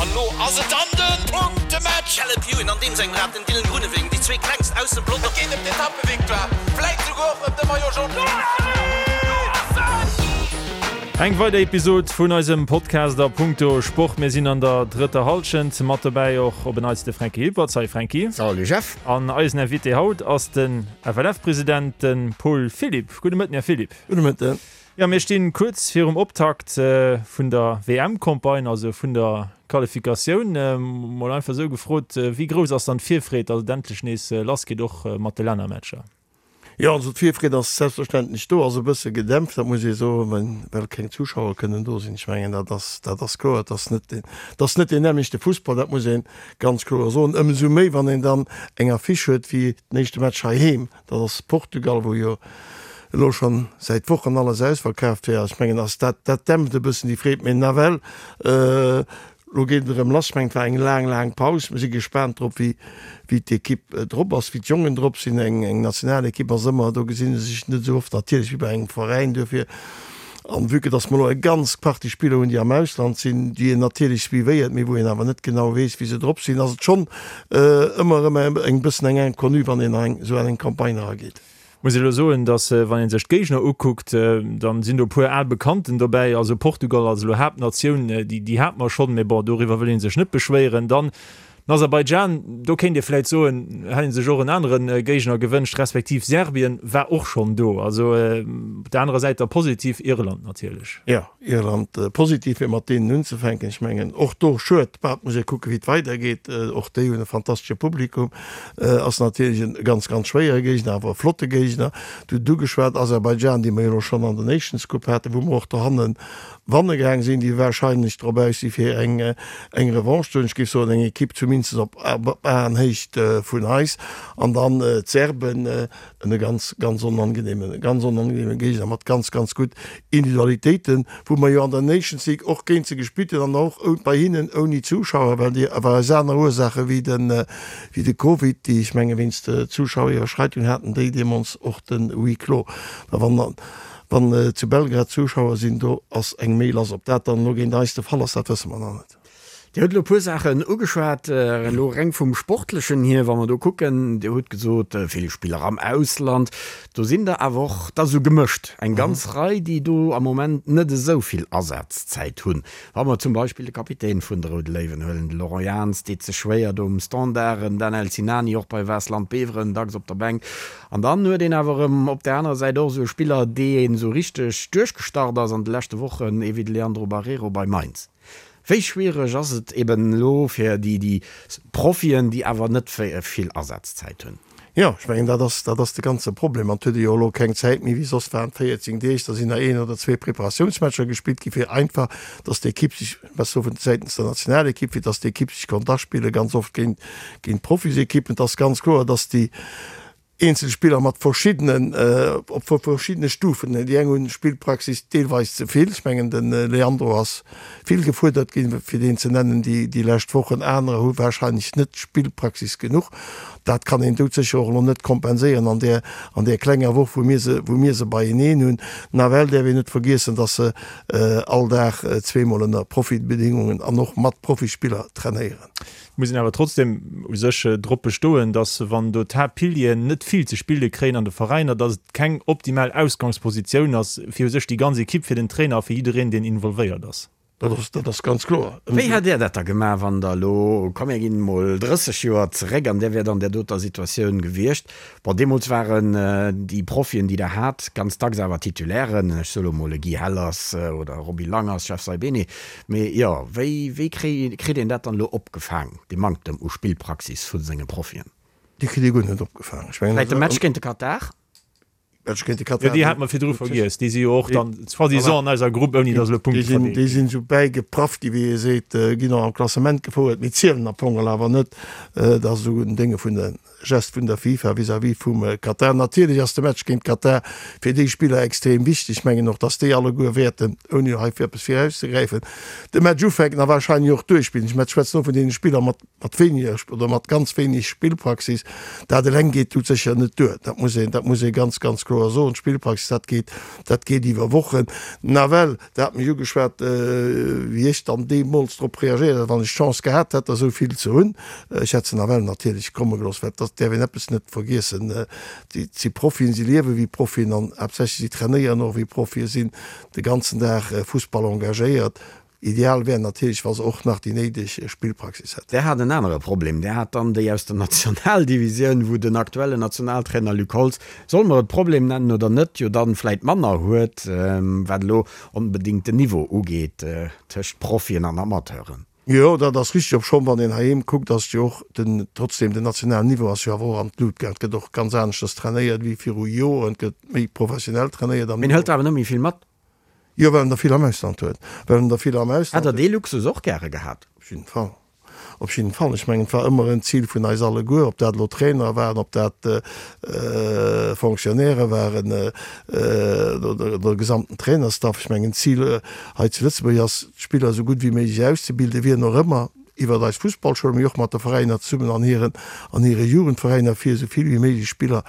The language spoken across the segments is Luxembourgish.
An elo ass et dann de Punktematch! Caleb Ewan an deem sengem Rad, den Dylan Groenewegen, déi zwee klengst aus dem Pelotong. Et geet ëm d'Etappevictoire, vläit souguer och ëm de Maillot Jaune. Eng weider Episod vun eisem Podcast a Punkto Sport. Mir sinn an der drëtter Hallschent. Mat dobäi och op en Neits de Franky Hilpert. Salut Franky. Salut Jeff. An eisen Invité haut ass den FLF-President, de Paul Philipp. Gudde Mëtten, Här Philipp. Gudde Mëtten. Jo, mir stinn kuerz virum Optakt vun der WM-Campagne, also vun der Qualifikatioun. Mol einfach esou gefrot, wéi grouss ass dann d'Virfreed, datt et endlech nees lass geet, och mat de Lännermatcher? Jo, also d'Virfreed ass selbstverständlech do, ass e bësse gedämpft, dat muss ee soen, well keng Zuschauer kënnen do sinn. Ech mengen, dat ass, dat ass kloer. Et ass net deen, et ass net deen nämmlechte Fussball, dat muss ee ganz kloer soen. Ëmsou méi, wann een dann eng Affiche huet wéi den éischte Match heiheem. Dat ass Portugal, wou jo elo schonn säit Wochen alles ausverkaaft wär. Ech mengen, ass dat, dat dämpft e bëssen déi Freed. Mee nawell, elo geet et erëm lass. Ech mengen, et war eng laang, laang Paus. Mir si gespaant drop, wéi, wéi d'Ekipp drop ass, wéi d'Jongen drop sinn. Eng, eng Nationalekipp ass ëmmer, do gesinn se sech net esou oft natierlech wéi bei engem Veräin. Duerfir An vue que dass mer elo eng ganz Partie Spiller hunn, déi am Ausland sinn, déi een natierlech suivéiert, mee wou een awer net genau weess, wéi se drop sinn, ass et schonn ëmmer erëm eng bëssen eng Inconnue, wann een an esou eng Campagne erageet. Muss elo soen, dass wann ee sech d'Géigner ukuckt, dann sinn do e puer al Bekannten dobäi. Also Portugal als elo Haaptnatioun, déi hate mer schonn, mee bon, doriwwer wëll ee sech net beschwéieren. Dann Den Aserbaidschan, do kéint ee vläit soen, hätt ee sech och en anere Géigner gewënscht, respektiv Serbien war och schonn do. Also op der anerer Säit da positiv Irland natierlech. Jo, Irland positiv, fir mat deenen unzefänken. Ech mengen och do, schued, bah, et muss ee kucken, wéi et weidergeet. Och déi hunn e fantastesche Publikum. Ass natierlech e ganz, ganz schwéiere Géigner, awer e flotte Géigner. Du hutt ugeschwat Aserbaidschan, déi mer jo elo schonn an der Nations Cup haten, wou mer och dohannen Wanne gaang sinn, déi wahrscheinlech drop aus si fir eng eng Revanche ze huelen. Ech géif soen eng Ekipp zumindest op Aenhéicht vun eis. An dann d'Serben, en ganz ganz onangenehmen, ganz onangenehmen Géigner mat ganz ganz gutt Individualitéiten, wou mer jo an der Nations League och géint se gespillt hunn an och bei hinnen ouni Zuschauer, well déi awer aus aner Ursaache wéi de wéi de Covid, déi ech menge wéinst Zuschaueriwwerschreitung haten déi deemools och de Huis clos. Mä wann Wann zu Belgrad Zuschauer sinn, do ass eng méi lass. Ob dat dann elo géint eis de Fall ass, dat wësse mer nach net. Dir hutt elo e puer Saachen ugeschwat, elo reng vum Sportlechen hier, wa mer do kucken, Dir hutt gesot, vill Spiller am Ausland, do sinn der awer och da sou gemëscht, eng ganz Rei, déi do am Moment net esou vill Asazäit hunn. Wa mer zum Beispill de Kapitän vun de Roude Léiwen huelen, de Laurent Jans, deet sech schwéier do um Standard, en Danel Sinani och bei Waasland Beveren, dacks op der Bänk. An dann huet een awer erëm op där anerer Säit och esou e Spiller, dee esou richteg duerchgestart ass an de leschte Wochen, ee wéi de Leandro Barreiro bei Mainz. Wéi schwiereg ass et eben elo fir déi déi Profien, déi awer net vill Asazäit hunn? Jo, ech mengen, dat ass, dat ass de ganze Problem. An et huet ee jo elo keng Zäit méi wéi soss waren 14 Deeg, da sinn nach een oder zwee Preparatiounsmatcher gespillt gi fir einfach, datt d'Ekipp sech, ech soe vun säitens der Nationalekipp, fir datt d'Ekipp sech konnt aspillen, ganz oft géint géint Profisekippen. Et ass ganz kloer, datt déi eenzel Spiller mat verschiddenen, op verschiddene Stufen, déi eng hunn Spillpraxis deelweis ze vill, ech mengen de Leandro ass vill gefuerdert ginn, fir deen ze nennen, déi déi lescht Wochen, anerer hu warscheinlech net Spillpraxis genuch. Dat kann een doudsécher och elo net kompenséieren an där an där klenger Woch, wou mir se wou mir se beieneen hunn. Nawell däerf een net vergiessen, datt se all Dag zweemol ënner Profibedingungen an och mat Profispiller trainéieren. Muss een awer trotzdem u sech drop bestoen, dass wann do d'Haaptpilieren net vill ze spille kréien an de Veräiner, dass et keng optimal Ausgangspositioun ass fir u sech déi ganz Equipe, fir den Trainer a fir jiddereen, deen involvéiert ass. Dat ass, dat ass ganz kloer. Wéi hätt Där dat da gemaach, wann Der elo, komm mir ginn emol 30 Joer zeréck, an Där wäert an där doter Situatioun gewiescht, Bon, deemools waren déi Profien, déi Der hat, ganz dacks awer Titulairen, ech soe lo mol e Guy Hellers oder e Roby Langers, Jeff Saibene. Mee jo, wéi, wéi kritt een dat dann elo opgefaang, dee Manktem u Spillpraxis vu senge Profien? Dee kritt ee guer net opgefaang. Ech mengen, Vläicht de Match géint de Katar? Match géint de Katar. Jo, déi hate mer virdru vergiess. Déi si jo och dann soi-disant an eiser Grupp, ouni datt elo Punkte verdeelt ginn. Déi sinn esou bäigeprafft gi, wéi ee seet, ginn och am Klassement gefouert, mee zielen am Fong awer net. Dat ass esou en Dénge vun de Gest vun der FIFA vis-à-vis vum Katar. Natierlech ass de Match géint Katar fir déi Spiller extrem wichteg. Ech mengen och, datt déi alleguer wäerten, ouni hei fir eppes virauszegräifen, de Match ufänken a warscheinlech och duerchspillen. Ech schwätzen och vun deene Spiller mat mat wéiniger oder mat ganz wéineg Spillpraxis. Dat eleng geet doudsécher net duer. Dat muss een, dat muss ee ganz, ganz kloer. kloer soen. D'Spillpraxis, dat geet, dat geet iwwer Wochen. Nawell, Der hat mech ugeschwat, wéi ech dann deemools drop reagéiert hätt, wann ech d'Chance gehat hätt, der esou vill ze hunn. Ech hätt se nawell natierlech komme gelooss, well et däerf een eppes net vergiessen, Et si Profien, si liewe wéi Profien an haaptsächlech si trainéieren och wéi Profien, sinn de ganzen Dag Fussball engagéiert. Ideal wär natierlech, wa se och nach déi néideg Spillpraxis hätten. Där hat en anere Problem, där hat dann déi aus der Nationaldivisioun, wou den aktuellen Nationaltrainer Luc Holtz, solle mer et Problem nennen oder net, jo dann vläit manner huet, wat elo onbedéngt den Niveau ugeet tëscht Profien an Amateuren. Jo, dat ass richteg. Obschonn, wann een heiheem kuckt, ass jo och den, trotzdem den nationalen Niveau ass jo awer och an d'Lut gaang. Et gëtt och ganz aneschters trainéiert wéi viru Joren. Et gëtt méi professionell trainéiert am Niveau. Een hëlt awer net méi vill mat. Jo, well en der vill am Ausland huet. Well en der vill am Ausland Hätt Der dee Luxus och gäre gehat? Op jidden Fall. Op jidden Fall. Ech mengen, et war ëmmer en Zil vun eis alleguer, ob dat elo Trainer waren, ob dat Fonctionnairë waren oder de gesamten Trainerstaff. Ech mengen, d'Zil hei zu Lëtzebuerg ass, d'Spiller esou gutt wéi méiglech auszebilden, wien och ëmmer, iwwert eis Fussballschoul, mee och mat de Veräiner zesummen an hiren, an hire Jugendveräiner, fir esou vill wéi méiglech Spiller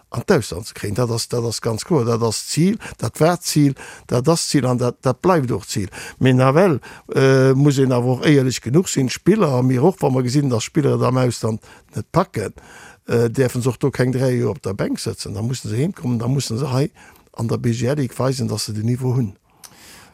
an d'Ausland ze kréien. Dat ass, dat ass ganz kloer, dat ass d'Zil, dat war d'Zil, dat ass d'Zil an dat, dat bleift och d'Zil. Mee nawell muss een awer och éierlech genuch sinn, d'Spiller a mir och, wa mer gesinn, datt Spiller et am Ausland net packen, däerfe se och do keng 3 Joer op der Bänk sëtzen. Da musse se heemkommen, da musse se hei an der BGL-Ligue weisen, datt se den Niveau hunn.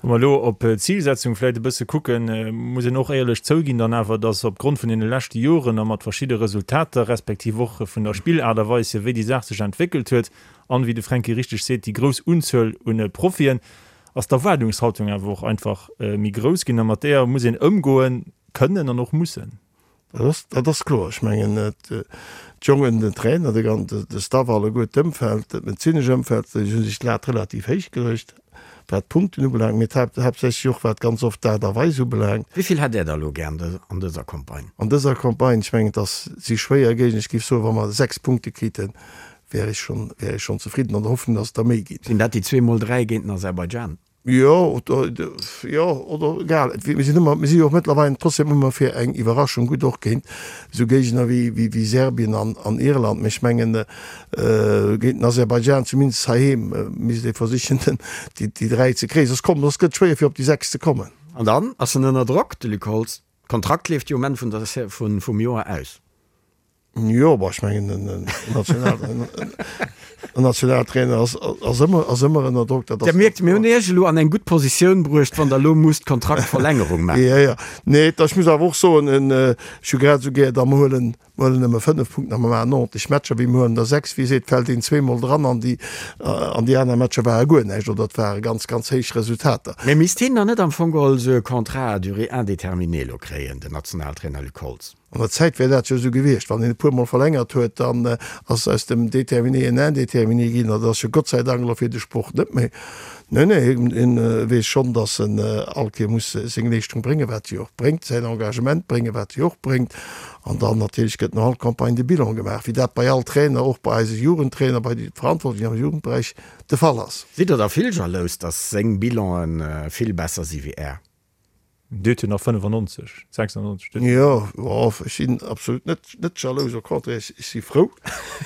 Wa mer elo op d'Zilsetzung vläicht e bësse kucken, muss een och éierlech zouginn dann awer, dass opgrond vun deene leschte Joren a mat verschidde Resultater, respektiv och vun der Spillaart a Weis hier, wéi déi Saach sech entwéckelt huet an, wéi de Fränki richteg seet, déi grouss Unzuel un Profien, ass d'Erwaardungshaltung awer och einfach méi grouss ginn a mat deeër muss een ëmgoen kënnen an och mussen. Dat ass kloer. Ech mengen, d'Jongen, den Trainer, de Staff alleguer, d'Ëmfeld, dat medezinesch Ëmfeld, déi hu sech d'Lat relativ héich geluecht, wat d'Punkten ubelaangt, mee haaptsächlech och wat ganz oft d'Aart a Weis ubelaangt. Wéi vill hätt Där der elo gär an dëser Campagne? An dëser Campagne, ech mengen, et ass, si schwéier Géigner. Ech géif soen, wa mer 6 Punkte kriten, wär ech schonn, wär ech schonn zefridden, an der Hoffnung, datt et der méi ginn. Sinn dat déi zweemol 3 géint den Aserbaidschan? Jo, oder, jo, oder egal. Mir sinn ëmmer, mir si jo och mëttlerweil trotzdem ëmmer fir eng Iwwerraschung gutt, och géint esou Géigner wéi, wéi, wéi Serbien an, an Irland. Mee ech mengen, géint den Aserbaidschan, zumindest heiheem, misst ee versichen, den, déi, déi 3 ze kréien. Soss kommt, soss gëtt et schwéier, fir op déi 6 ze kommen. An dann ass en ënner Drock, de Luc Holtz. D'Kontrakt leeft jo um Enn vun der, vun, vum Joer aus. Jo, bon, ech mengen, en Nationaltrainer ass, ass ëmmer, ass ëmmer ënner Drock. Dat ass. Dir mierkt, mir hunn Iech elo an eng gutt Positioun bruecht, wann Der elo musst Kontraktverlängerung maachen. Jo, jo. Nee, ech muss awer och soen, ech hu grad esou gär, da mer huelen, mer huelen nëmme 5 Punkten a mer maachen 90 Matcher, wéi mer huelen der 6. Wéi seet, fält een zweemol dran an déi, an déi aner Matcher ware guer näischt oder et ware ganz, ganz héich Resultater. Mee misst hien dann net am Fong geholl esou e Contrat à durée indéterminée elo kréien, den Nationaltrainer Luc Holtz? An der Zäit wär dat jo esou gewiescht, wann een e puermol verlängert huet, dann ass aus dem Déterminé en Indéterminé ginn. Dat ass jo Gott sei Dank elo fir de Sport net méi. Nee, nee, hien weess schonn, datt en all Kéier muss seng Leeschtung bréngen, wat hie och bréngt, säin Engagement bréngen, wat hie och bréngt. An dann natierlech gëtt no all Campagne de Bilan gemaach, wéi dat bei all Trainer, och bei eise Jugendtrainer, bei de Verantwortlechen am Jugendberäich de Fall ass. Sidd Der da vill jalous, datt seng Bilanen vill besser si wéi Är? Dir hutt jo nach 95, 96. Jo, ech sinn absolut net, net jalous, au contraire, ech si frou,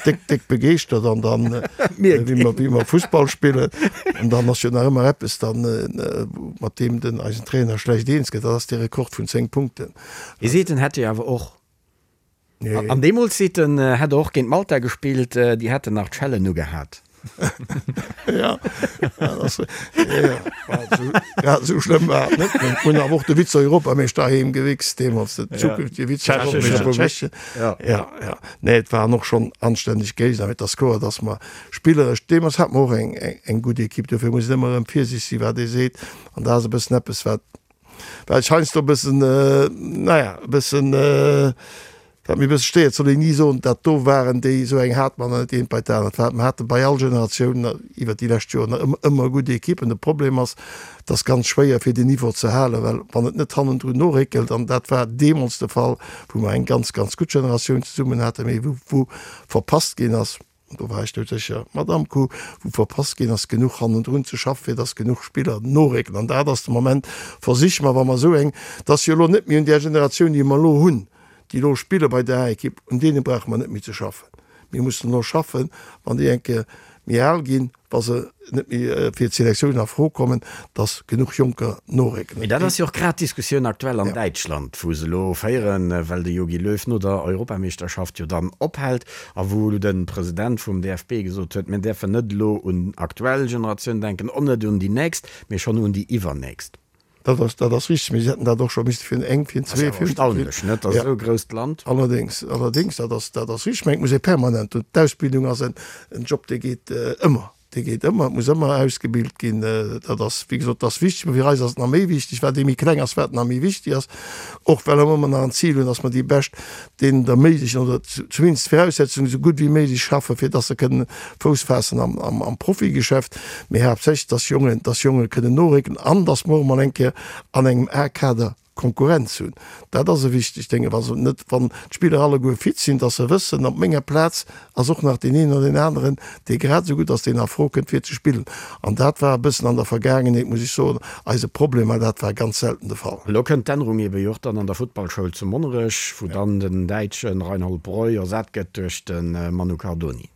déck, déck begeeschtert an dann, wéi mer, wéi mer Fussball spillen, an dann ass jo nach ëmmer eppes dann, mat deem den eisen Trainer schlecht eens gëtt, dat ass dee Rekord vun 10 Punkten. Hie seet, en hätt jo awer och, an deemools seet en, hätt e och géint Malta gespillt, déi hätten nach d'Schellen ugehat. Ja, ja, esou schlëmm war et net. Mir hunn awer och de Vize-Europameeschter heem gewichst deemools, den zukünftege Vize-Europameeschter Tschechien. Ja, ja. Nee, et waren och schonn anstänneg Géigner, mee et ass kloer, datt mer spilleresch, deemools hate mer och eng, eng gutt Ekipp. Dofir muss een ëmmer erëm virsiichteg sinn, wat ee seet. An dat ass e bëssen eppes, wat, wat ech heiansdo e bëssen, naja, e bëssen, Wat mir e bësse stéiert, soll een ni soen, dat do waren déi, esou eng hate mer nach net, eent bei d'anert. Wat mer hate bei all Generatioun iwwert déi lescht Joren ëmmer, ëmmer gutt Ekippen. De Problem ass, et ass ganz schwéier fir den Niveau ze halen, well wann et net hannendrun noréckelt, an dat war deemools de Fall, wou mer eng ganz, ganz gutt Generatioun zesummen haten, mee wou, wou verpasst ginn ass, Do war ech dout sécher, Madamm Kuh, wou verpasst ginn ass, genuch hannendrun ze schaffen, fir dass genuch Spiller norécken. An dat ass de Moment, versiche mer, wa mer esou eng, et ass jo elo net méi un där Generatioun, déi mer elo hunn, déi elo spille bei der A-Ekipp, un deene brauche mer net méi ze schaffen. Mir mussen elo schaffen, wann déi eng Kéier. méi al ginn, wa se net méi fir d'Selektioun a Fro kommen, dass genuch Jonker norécken. Mee dat ass jo och grad d'Diskussioun aktuell an Däitschland, wou se elo féieren, well de Jogi Löw no der Europameeschterschaft jo dann ophält a wou de President vum DFB gesot huet, mir däerfen net elo un aktuell Generatioun denken, och net un déi nächst, mee schonn un déi iwwernächst. Dat ass, dat ass richtig, mee si hätten dat och scho misste virun eng, virun zwee, virun. Ass awer erstaunlech, net, datt esou e grousst Land. Allerdéngs, allerdéngs, dat ass, dat ass richtig. Mä et muss ee permanent, und d'Ausbildung ass en, en Job, dee geet ëmmer, dee geet ëmmer, et muss ëmmer ausgebilt ginn. Dat ass, wéi gesot, dat ass wichteg, mä fir eis ass et nach méi wichteg, wat ee méi kleng ass, wat nach méi wichteg ass, och well mer ëmmer nach en Zil hunn, datt mer déi bescht deenen et erméiglechen oder zumindest d'Viraussetzungen esou gutt wéi méiglech schaffen, fir dass se kënnen Fouss faassen am Profigeschäft, mee haaptsächlech, dass Jongen, dass Jonge kënnen norécken an dass mer och emol eng Kéier an engem A-Kader Konkurrenz hunn. Dat ass e wichtegt Dénge, wa se net, wann d'Spiller alleguer fit sinn, dass se wëssen, op menger Plaz ass och nach deen een oder deen aneren, dee grad esou gutt ass, deen a Fro kënnt fir ze spillen. An dat war e bëssen an der Vergaangenheet, muss ech soen, eise Problem, mä dat war ganz selten de Fall. Elo kënnt d'Ännerung ebe jo och dann an der Futtballschoul zu Monnerech, wou dann den Däitsche Reinhold Breu ersat gëtt duerch de Manu Cardoni.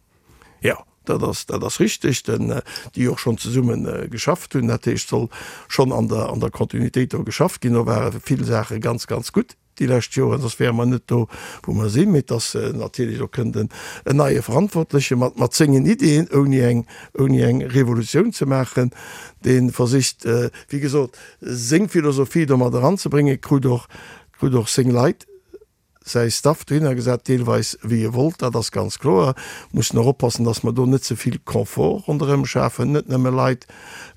Jo, dat ass, dat ass richteg, den, déi och schonn zesumme geschafft hunn. Dat heescht, soll schonn an der, an der Kontinuitéit do geschafft ginn. Do ware vill Saache ganz, ganz gutt. déi lescht Joren, soss wäre mer net do, wou mer sinn. Mee et ass natierlech, do kënnt en neie Verantwortleche mat, mat sengen Ideeën, ouni eng, ouni eng Revolutioun ze maachen, dee versicht, wéi gesot, seng Philosophie do mat eranzebréngen, krut och, krut och seng Leit, säi Staff dohinner gesat, deelweis wéi e wollt, dat ass ganz kloer. Mussen och oppassen, dass mer do net ze vill Confort ronderëm schafen, net nëmme Leit,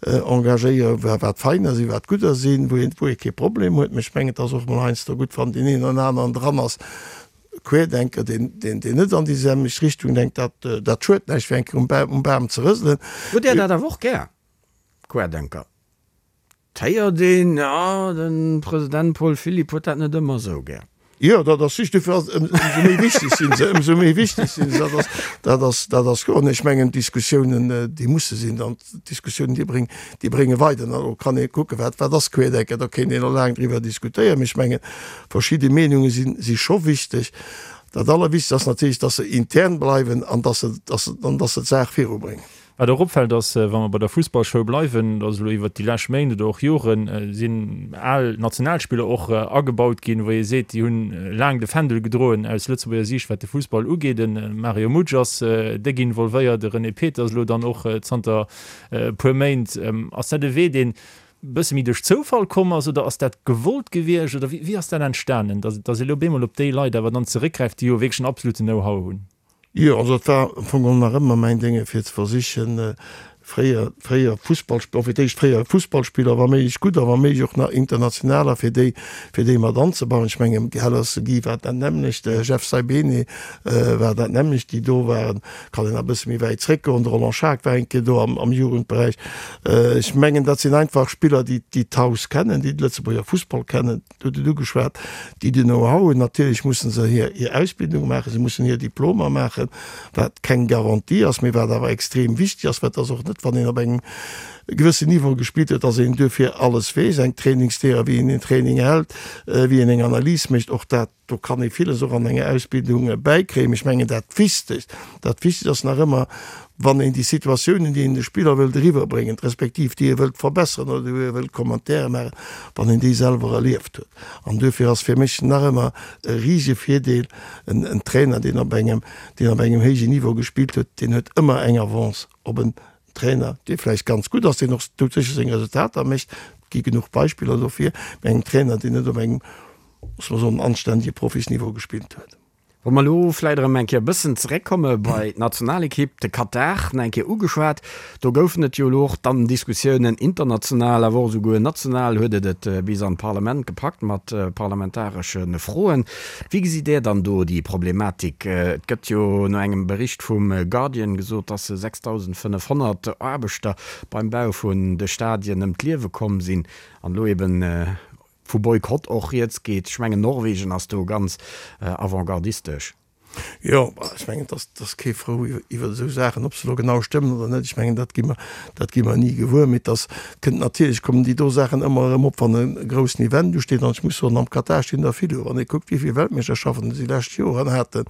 engagéieren, wat feiner sinn, wat gudder sinn, wou een, wou ee kee Problem huet. Mä ech mengen, et ass och emol heiansdo gutt, wann deen een oder aneren dran ass, Querdenker, deen, deen, deen net an déi selwecht Richtung denkt. Dat, dat schuet näischt, fir eng Kéier um Bam, um Bam ze rëselen. Hutt Där dat awer och gär, Querdenker? 't héiert een, jo, de President Paul Philipp huet dat net ëmmer esou gär. Jo, dat ass richteg. Dofir ass et ëmsou méi wichteg sinn se, ëmsou méi wichteg sinn se. Dat ass, dat ass, dat ass kloer. An ech mengen, d'Diskussiounen, déi musse sinn. An d'Diskussiounen, déi bréng, déi brénge weider. An do kann ee kucken, wat, wat ass Querdenken? Do kéint een och laang driwwer diskutéieren. Mee ech mengen, verschidde Meenunge sinn, si scho wichteg. Dat Allerwichtegst ass natierlech, dass se intern bleiwen an dass se, dass se, an dass se d'Saach virubréngen. Wat och opfält ass, wa mer bei der Fussballschoul bleiwen, dass elo iwwert déi lescht Méint oder och Joren sinn al Nationalspiller och agebaut ginn, wou ee seet, déi hunn laang de Fändel gedroen aus Lëtzebuerger Siicht, wat de Fussball ugeet. De Mario Mutsch ass déck involvéiert, de René Peters elo dann och zanter e puer Méint. Ass dat e Wee, deen e bësse méi duerch Zoufall komm ass oder ass dat gewollt gewiescht oder wéi ass dat entstanen, dass ee elo op eemol op déi Leit awer dann zeréckgräift, déi jo wierklech en absoluten Know-how hunn? Jo, also et war am Fong geholl nach ëmmer mäin Dénge fir ze versichen, fréier, fréier Fussballspiller, fir d'éischt fréier Fussballspiller, wa méiglech gudder, wa méiglech och nach internationaler, fir déi, fir déi mat anzebauen. Ech mengen, Hellers Guy war dat nämmlecht, de Jeff Saibene war dat nämmlecht, déi do waren. Kann een nach e bësse méi wäit zréckgoen, de Roland Schaack war eng Kéier do am, am Jugendberäich. Ech mengen, dat sinn einfach Spiller, déi, déi d'Haus kennen, déi de Lëtzebuerger Fussball kennen. Du hutt et ugeschwat, déi den Know-how hunn. Natierlech musse se hir Ausbildung maachen, se mussen hir Diplomer maachen, wat keng Garantie ass, mee wat awer extrem wichteg ass, well et ass och net, wann een op engem gewëssen Niveau gespillt huet, dass een duerfir alles weess, eng Trainingslehre, wéi een een Training hält, wéi een eng Analys mécht, och dat, do kann ee villes och an enger Ausbildung bäikréien. Mee ech mengen, dat Wichtegst, dat Wichtegst ass nach ëmmer, wann een déi Situatiounen, déi een de Spiller wëllt eriwwerbréngen, respektiv déi e wëllt verbesseren oder wou e wëllt Commentaire maachen, wann een déi selwer erlieft huet. An duerfir ass fir mech nach ëmmer e risege Virdeel, en en Trainer, deen op engem, deen op engem héijen Niveau gespillt huet, deen huet ëmmer eng Avance op en Trainer, dee vläicht ganz gutt ass, deen och doudsécher seng Resultater mécht, et gi genuch Beispiller dofir, mä engem Trainer, deen net op engem, loosse mer soen, anständege Profisniveau gespillt huet. Wa mer elo vläit erëm eng Kéier e bëssen zeréckkomme bei d'Nationalekipp, de Katar nach eng Kéier ugeschwat, do goufen et jo elo och dann Diskussiounen international, awer och esouguer national huet et et bis an d'Parlament gepackt mat parlamentaresche Froen. Wéi gesitt Där dann do déi Problematik? Et gëtt jo no engem Bericht vum Guardian gesot, dass 6.500 Aarbechter beim Bau vun de Stadien ëm d'Liewe komm sinn an elo eben vu Boykott och rieds geet. Ech mengen Norwegen ass do ganz avantgardistesch. Jo, ech mengen, et ass kee frou iwwer esou Saachen, ob se elo genau stëmmen oder net. Ech mengen, dat gi mer, dat gi mer ni gewuer. Mee et ass, kënnt natierlech, kommen déi do Saachen ëmmer erëm op, wann e groussen Event usteet. An ech muss soen, am Katar stinn der vill u. Wann ee kuckt, wéi vill Weltmeeschterschaften se déi lescht Joren haten,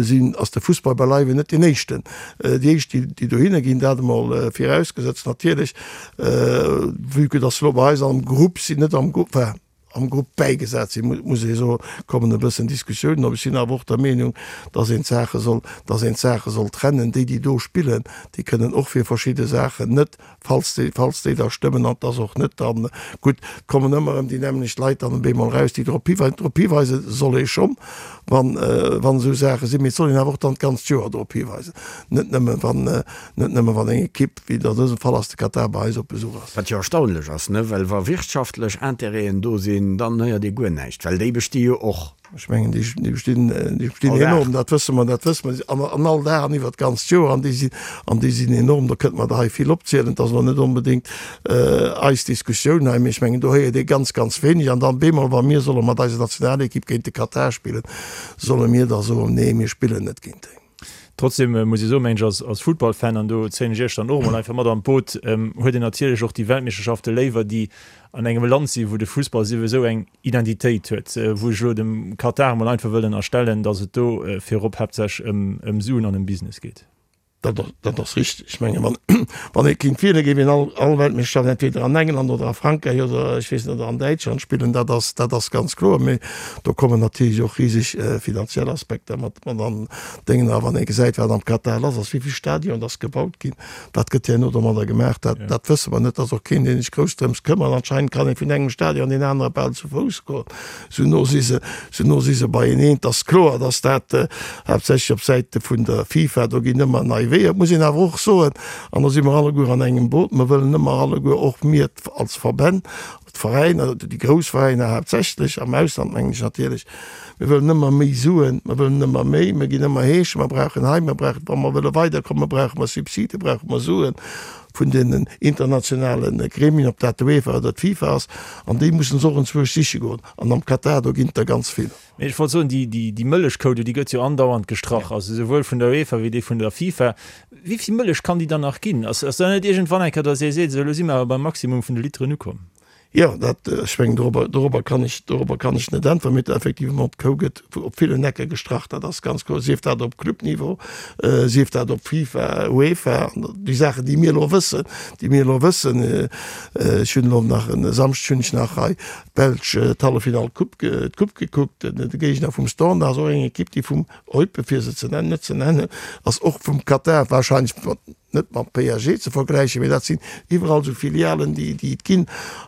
sinn, ass de Fussball beileiwen net deen éischten, déi éischt, déi, déi dohinner ginn. Dat emol virausgesetzt natierlech, vue que dass se elo bei eis am Grupp sinn, net am Grupp, enfin, am Grupp bäigesat sinn, muss ee soen, kommen e bëssen Diskussiounen op. Ech sinn awer och der Meenung, dass een d'Saache soll, dass een d'Saache soll trennen. Déi, déi do spillen, déi kënnen och fir verschidde Saachen net, falls déi, falls déi da stëmmen, an dass och net dann, gutt, et kommen ëmmer erëm déi nämmlecht Leit dann op eemol eraus, déi drop hiweisen. Drop hiweise soll ee schonn, wann, wann esou Saache sinn, mee et soll een awer och dann d'ganzt Joer drop hiweisen, net nëmme wann, Net nëmme wann eng Ekipp, wéi et an dësem Fall ass, de Katar, bei eis op Besuch ass. Wat jo erstaunlech ass, ne? Well wa wirtschaftlech Intérêten do sinn, dann héiert ee guer näischt, well déi besti jo och. Ech mengen, déi bestinn, déi bestinn enorm, dat wësse mer, dat wësse mer, an, an all Dag an iwwert d'ganzt Joer, an déi sinn, an déi sinn enorm. Do kënnte mer der hei vill opzielen. Et ass elo net onbedéngt eis Diskussioun hei, mee ech mengen, do héiert ee ganz, ganz wéineg. An dann bemol, wa mir solle mat eiser Nationalekipp géint de Katar spillen, solle mir da soen, nee, mir spillen net géint déi. Trotzdem muss ee soen, mengen ech, als Futtballfan, an do zéien ech Iech dann och emol einfach mat an d'Boot, huet een natierlech och déi Weltmeeschterschafte léiwer, déi an engem Land sinn, wou de Fussball souwisou eng Identitéit huet, wou ech elo dem Katar emol einfach wëll ënnerstellen, datt et do virop haaptsächlech ëm Suen an ëm Business geet. Dat ass richteg. Ech mengen, wann ee kéint wielen, géif een all Weltmeeschterschaft entweder an England oder a Frankräich oder, ech weess net, oder an Däitschland spillen. Dat ass, dat ass ganz kloer. Mee do kommen natierlech och riseg finanziell Aspekter mat an Déngen. A wann ee gesäit, wat am Katar lass ass, wéi vill Stadionen dass gebaut ginn, wat gëtt herno domadder gemaach, dat, dat wësse mer net. Et ass och keen, dee sech grouss drëms këmmert. Anscheinend kann ee vun engem Stadion an deen anere bal zu Fouss goen. Sou no si se, sou no si se beieneen. Et ass kloer, datt dat haaptsächlech op Säite vun der FIFA, do ginn ëmmer nei Weeër. Et muss een awer och soen, an do si mer alleguer an engem Boot, mer wëllen ëmmer alleguer, och mir als Verbänn, d'Veräiner, déi grouss Veräiner haaptsächlech, am Ausland mengen ech natierlech, mir wëllen ëmmer méi Suen, mer wëllen ëmmer méi, mer ginn ëmmer heeschen, mer brauchen hei, mer brauchen, wa mer wëlle weiderkommen, brauche mer Subside, brauche mer Suen. vun den internationale Gremien, ob dat d'UEFA oder d'FIFA ass, an déi mussen se och enzwousch siche goen. An am Katar, do ginn et der ganz vill. Mee ech wollt soen, déi, déi Mëllechkou do, déi gëtt jo andauernd gestrach, also souwuel vun der UEFA wéi déi vun der FIFA. Wéi vill Mëllech kann déi dann nach ginn? Ass, ass da net iergendwann eng Kéier, datt ee seet, esou elo si mer awer beim Maximum vun de Literen ukomm? Jo, dat, ech mengen, dorobber, dorobber kann ech, dorobber kann ech net äntweren. Mee effectivement, d'Kou gëtt op villen Ecke gestrach, dat ass ganz kloer, sief dat op Clubniveau, sief dat op FIFA, UEFA, an déi Saachen, déi mir elo wëssen, déi mir elo wëssen. Ech hunn elo nach e Samschdeg hunn ech nach hei d'Belsch d'Halleffinall Coupe, d'Coupe gekuckt, de Géigner vum Standard ass och eng Ekipp, déi vum Eupen, fir se ze nennen, net ze nennen, ass och vum Katar wahrscheinlech, net mam PSG ze vergläichen, mee dat sinn iwwerall esou Filialen, déi déi et ginn.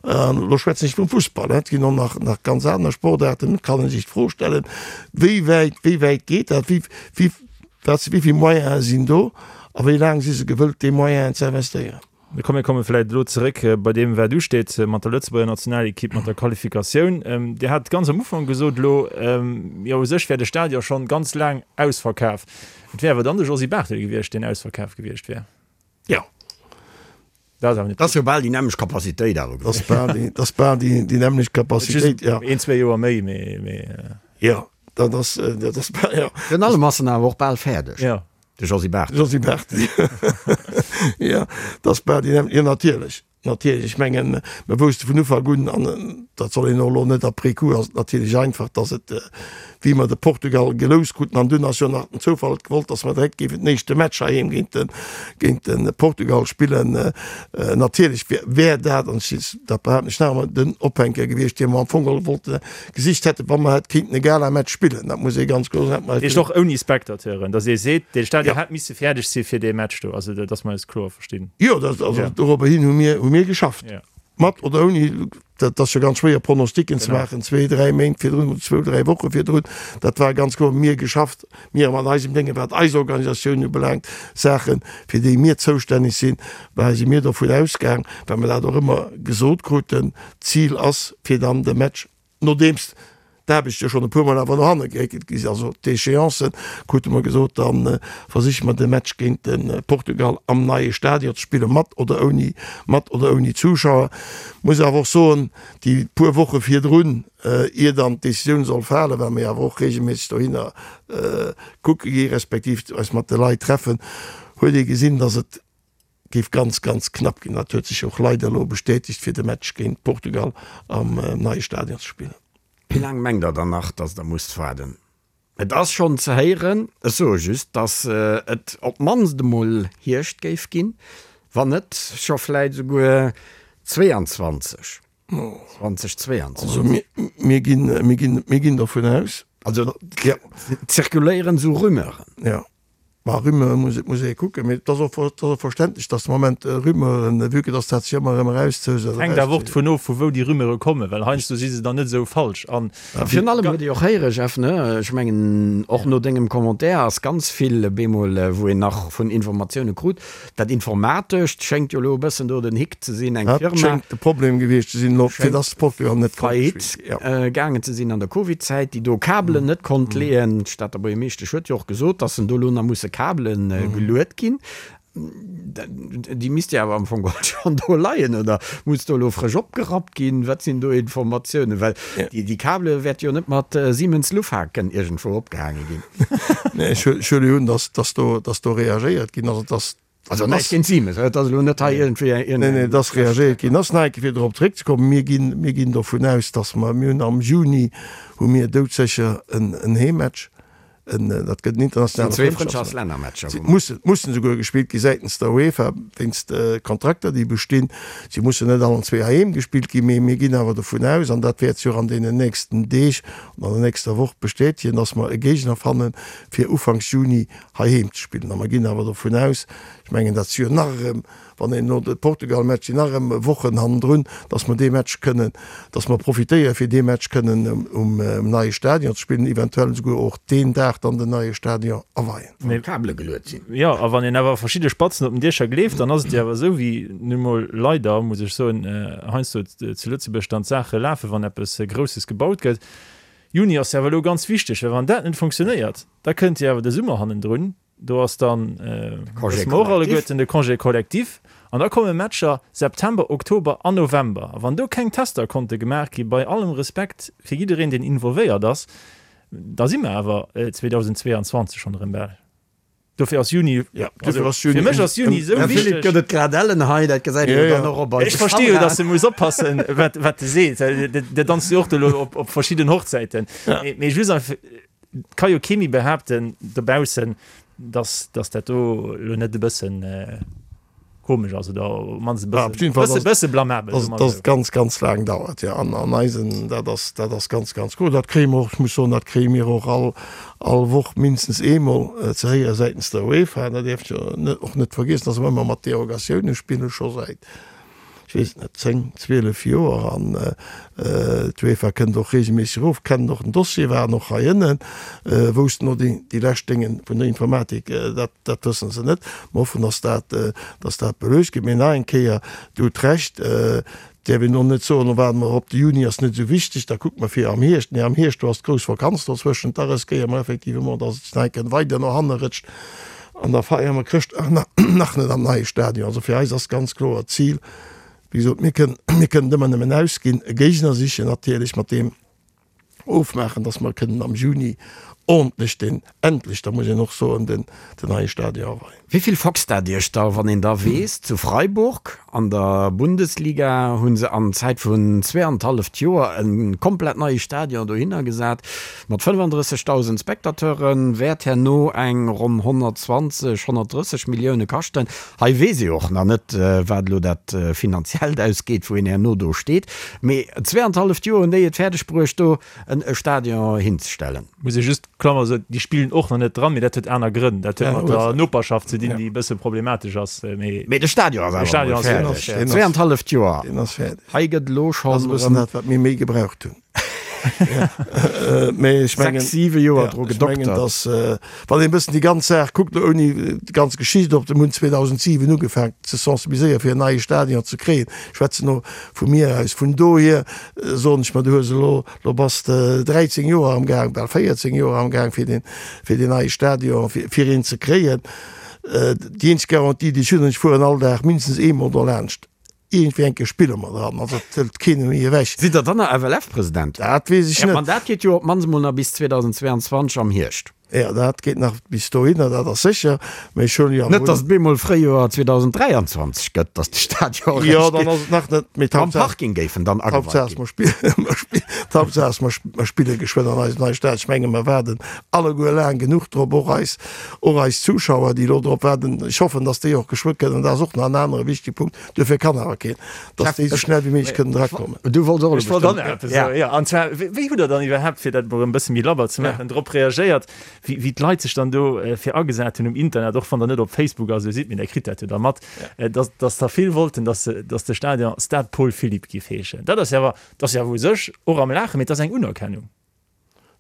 An elo schwätzen ech vum Fussball, et ginn och nach nach ganz aner Sportaarten. Et kann ee sech d'Fro stellen, wéi wäit wéi wäit geet dat, wéi wéi wat wéi vill Moyene sinn do a wéi laang si se gewëllt, déi Moyenen ze investéieren. Mee komm, mir komme vläicht elo zeréck bei deem, wat usteet mat der Lëtzebuerger Nationalekipp, mat der Qualifikatioun. Dir hat ganz am Ufank gesot elo, jo u sech wär de Stadion schonn ganz laang ausverkaf. Et wär awer dann de Josy Barthel gewiescht, deen ausverkaf gewiescht wär. Jo. Dat ass awer net. Dat ass jo bal déi nämmlecht Capacitéit awer gewiescht. Dat ass bal déi nämmlecht Capacitéit, jo. Een, zwee Joer méi, mee, mee. Jo, dat ass, dat ass bal, jo. Virun allem ass en awer och bal fäerdeg. Jo. De Josy Barthel. Josy Barthel, jo. Dat ass bal déi nämmlecht, jo natierlech. Natierlech, ech mengen, mer wousste vun Ufank un, an dat soll een och elo net après coup, ass et natierlech einfach, datt et, wéi mer de Portugal geloust kruten, an dunn ass jo nach den Zoufall et gewollt, datt mer direkt géifen den éischte Match heiheem géint de, géint de Portugal spillen. Natierlech wär, wär dat, an ech, dat behaapten ech nach emol, den Ophänker gewiescht, dee mer am Fong geholl wollte gesicht hätten, wa mer hätt kéinten e Galamatch spillen. Dat muss ee ganz kloer soen. Dat heescht och ouni Spectateuren, datt ee seet, dee Stadion hätt misse fäerdeg si fir dee Match do, also datt mer eis kloer verstinn. Jo, dat, also dorobber hin hu mir, hu mir geschafft. Ja. Mat oder ouni, dat ass jo ganz schwéier Pronosticken ze maachen, zwee, dräi Méint virdrun oder zwou, dräi Woche virdrun. Dat war ganz kloer, mir geschafft, mir mat eisem Déngen, wat eis Organisatioun ubelaangt, Saachen, fir déi mir zoustänneg sinn, war, si mir dovun ausgaang, well mer dat och ëmmer gesot kruten, d'Zil ass, fir dann de Match, nodeems. d'Aarbechte schonn e puermol awer no hanne geréckelt gi sinn. Also d'Échéancen krute mer gesot, da versiche mer de Match géint de Portugal am neie Stadion ze spillen, mat oder ouni, mat oder ouni Zuschauer. Muss awer och soen, déi puer Woche virdrun, ier dann d'Decisioun soll falen, well mir awer och regelméisseg dohinner kucke gi respektiv eis mat de Leit treffen, huet ee gesinn, datt et géif ganz, ganz knapp ginn. Dat huet sech och leider elo bestätegt, fir de Match géint Portugal am neie Stadion ze spillen. Wéi laang mengt Der dann nach, datt Der musst waarden? Et ass schonn ze héieren, ech soe just, datt et op d'mannst emol Hierscht géif ginn, wann net scho vläit esouguer 22, 2022. Also mir ginn, mir ginn, mir ginn dovun aus. Also et zirkuléieren esou Rumeuren. Jo. Ma Rumeure muss et muss ee kucken, mee et ass och et ass och verständlech, datt de Moment Rumeuren, vue que datt dat sech ëmmer erëm erauszeus. Et hänkt awer och dovun of, vu wou déi Rumeure kommen, well heiansdo si se dann net esou falsch. An. Virun allem huet ee och héiere, Jeff, ne, ech mengen och no dengem Commentaire ass ganz vill bemol, wou een nach vun Informatioune krut, Dat Informatescht schéngt jo elo e bëssen do den Hick ze sinn, eng Firma. Dat schéngt de Problem gewiescht ze sinn elo, fir dass Portugal net konnt spillen. Faillite gaangen ze sinn an der Covid-Zäit, déi do Kabelen net konnt leeën. D'Stater Buergermeeschtesch huet jo och gesot, dass en do elo nach musse Kabele geluet ginn. Déi misste jo awer am Fong geholl schonn do leien, oder muss do elo frësch opgerappt ginn? Wat sinn do Informatiounen? Well déi Kabele wäerte jo net mat Siemens-Lufthaken iergendwou opgehaange ginn. Nee, ech huele jo un, dass, dass do, dass do reagéiert ginn ass. Et ass. Also näischt géint Siemens, et ass elo net hei iergendwéi eng. Nee, nee, et ass reagéiert ginn ass. Nach eng Kéier fir dorop zeréckzekommen, Mir ginn, mir ginn dovun aus, dass mer, mir hunn am Juni hu mir doudsécher en, en Heemmatch, en, dat gëtt en internationale Zwee Frëndschaftslännermatcher, wou mer. Mussen, mussen esouguer gespillt gi säitens der UEFA wéinst de Kontrakter, déi bestinn. Si mussen net allen zwee heiheem gespillt ginn, mee mir ginn awer dovun aus, an dat wäert sech och an deenen nächsten Deeg an der nächster Woch bestätegen, dass mer e Géigner fannen, fir ufanks Juni heiheem ze spillen. A mer ginn awer dovun aus, ech mengen, dat si jo nach erëm, wann een elo de Portugal-Match, sinn nach erëm Wochen hannendrun, dass mer dee Match kënnen, dass mer profitéieren, fir dee Match kënnen um neie Stadion ze spillen, eventuell esouguer och deen Dag dann den neie Stadion aweien. Wann d'Kabele geluet sinn. Jo, a wann een awer verschidde Spatzen op den Diecher gleeft, dann ass et jo awer esou, wéi nu mol leider, muss ech soen, heiansdo zu Lëtzebuerg dann d'Saache lafen, wann eppes Grousses gebaut gëtt. Juni ass jo awer elo ganz wichteg, well wann dat net funktionéiert, da kënnt jo awer de Summer hannendrun, do ass dann, wësse mer och alleguerten, de Congé collectif, an da komme Matcher September, Oktober an November. A wann do keng Tester konnte gemaach gi, bei allem Respekt fir jiddereen, deen involvéiert ass, Da si mer awer 2022 schonn erëm bal. Dofir ass Juni, also fir mech ass Juni esou wichteg. Philippe, gëtt et grad ellen hei, dat gesäit een jo dann och op eise Kameraen. Ech versti jo, datt e muss oppassen, wat wat e seet. Der danzt jo och elo op op verschidden Hochzäiten. Mee just einfach, et ka jo kee méi behaapten dobaussen, datt datt dat do elo net e bëssen Komesch ass oder op mannst e bësse, bësse, bësse blamabel, soe mer esou. Dass et ganz, ganz laang dauert, jo. An, an eisen, dat ass, dat ass ganz, ganz cool. Dat kréie mer och, ech muss soen, dat kréie mir och all, all Woch mindestens eemol ze héiere säitens der UEFA. Dat däerf jo net, och net vergiessen, dass mer ëmmer mat Derogatioune spillen, scho säit, ech weess et net, 10, 12 Joer. An d'UEFA kënnt och reegelméisseg erof, kennen och den Dossier, waren och hei ënnen, woussten och déi, déi lescht Dénge vun der Informatik, dat, dat wësse se net. Mer hoffen, dass dat, dass dat beluecht gëtt. Mee nach eng Kéier, Dir hutt Recht, däerf een och net soen, lo waarde mer op de Juni, ass net esou wichteg, da kucke mer fir am Hierscht. Nee, am Hierscht, do ass d'grouss Vakanz dozwëschent, da riskéiere mer effectivement, dass et nach eng Kéier weider no hanne rëtscht an da feiere mer Chrëschtdag nach net am neie Stadion. Also fir eis ass ganz kloer d'Zil, wéi gesot, mir kënnen, mir kënnen ëmmer nëmmen ausginn, e Géigner sichen natierlech, mat deem ofmaachen, dass mer kënnen am Juni ordentlech den, endlech, da muss een och soen, den, den neie Stadion aweien. Wéi vill foxt dat Iech da, wann een da weess, zu Freiburg an der Bundesliga hu se an Zäit vun zweeanenthalleft Joer e komplett neie Stadion dohinner gesat mat 35.000 Spectateuren, wäert herno eng ronn 120, 130 Millioune kaschten. Hei weess ee och nach net, wat elo dat Finanziellt ausgeet, wou een herno do steet. Mee zweeanenthalleft Joer hunn déi et fäerdeg bruecht, do e Stadion hinzestellen. Muss ee just, Klammer, soen, déi spillen och nach net dran, mee dat huet aner Grënn. Dat huet mat der Noperschaft ze dinn, déi e bësse problematesch ass. Mee de Stadion ass awer emol fäerdeg. Zweeanenthalleft Joer. Deen ass fäerdeg. Hei gëtt elo schonn. Dat ass e bëssen dat, wat mir méi gebraucht hunn. Mee ech mengen, 6, 7 Joer dru ech mengen, gedoktert. dass, wann een e bëssen déi ganz Saach kuckt, elo ouni déi ganz Geschicht op, mir hunn 2007 ugefaangen ze sensibiliséieren, fir en neie Stadion ze kréien. Ech schwätzen elo vu mir aus. Vun dohier soen ech mer, du hues elo, elo bass de 13 Joer am Gaang, bal 14 Joer am Gaang, fir deen, fir deen neie Stadion, fir, fir een ze kréien. Déi eenzeg Garantie, déi ech hunn, ech fueren all Dag mindestens eemol dolaanscht. Iergendwéi eng Kéier spille mer dran, also et hëlt keen méi ewech. Sidd Der dann nach FLF-President? Dat weess ech Ja, net. D'Mandat geet jo op d'mannst emol nach bis 2022 am Hierscht. Jo, dat geet nach bis dohinner, dat ass sécher, mä ech hunn jo Net, datt et bemol Fréijoer 2023 gëtt, datt de Stadion Jo, eréischt dann ass et nach net, mee Am d'Haaptsaach, Parking géif en dann ageweit d'Haaptsaach ass, ginn. mer spillen, mer spillen, d'Haaptsaach ass, mer mer spille geschwënn an eisem neie Stadion. Ech menge mer waarden alleguer laang genuch drop, och eis, och eis Zuschauer, déi elo drop waarden. Ech hoffen, datt déi och geschwë kënnen, dat ass och nach en anere wichtege Punkt, Duerfir kann awer keen, dass déi esou schnell wéi méiglech kënnen erakommen. Du wollts och elo Ech wollt och nach bestëmmt. eppes soen, jo. An zwar, wéi hutt Der dann iwwerhaapt, fir dat emol erëm e bësse méi labber ze maachen, drop reagéiert, wéi, wéi d'Leit sech dann do fir agesat hunn um Internet, och wann Der net op Facebook a sou sidd, mee Der kritt dat jo da mat, dass, dass der vill wollten, dass, dass de Stadion Stade Paul Philipp giff heeschen. Dat ass jo awer, dat ass jo awer u sech och am Laachen, mee et ass eng Unerkennung.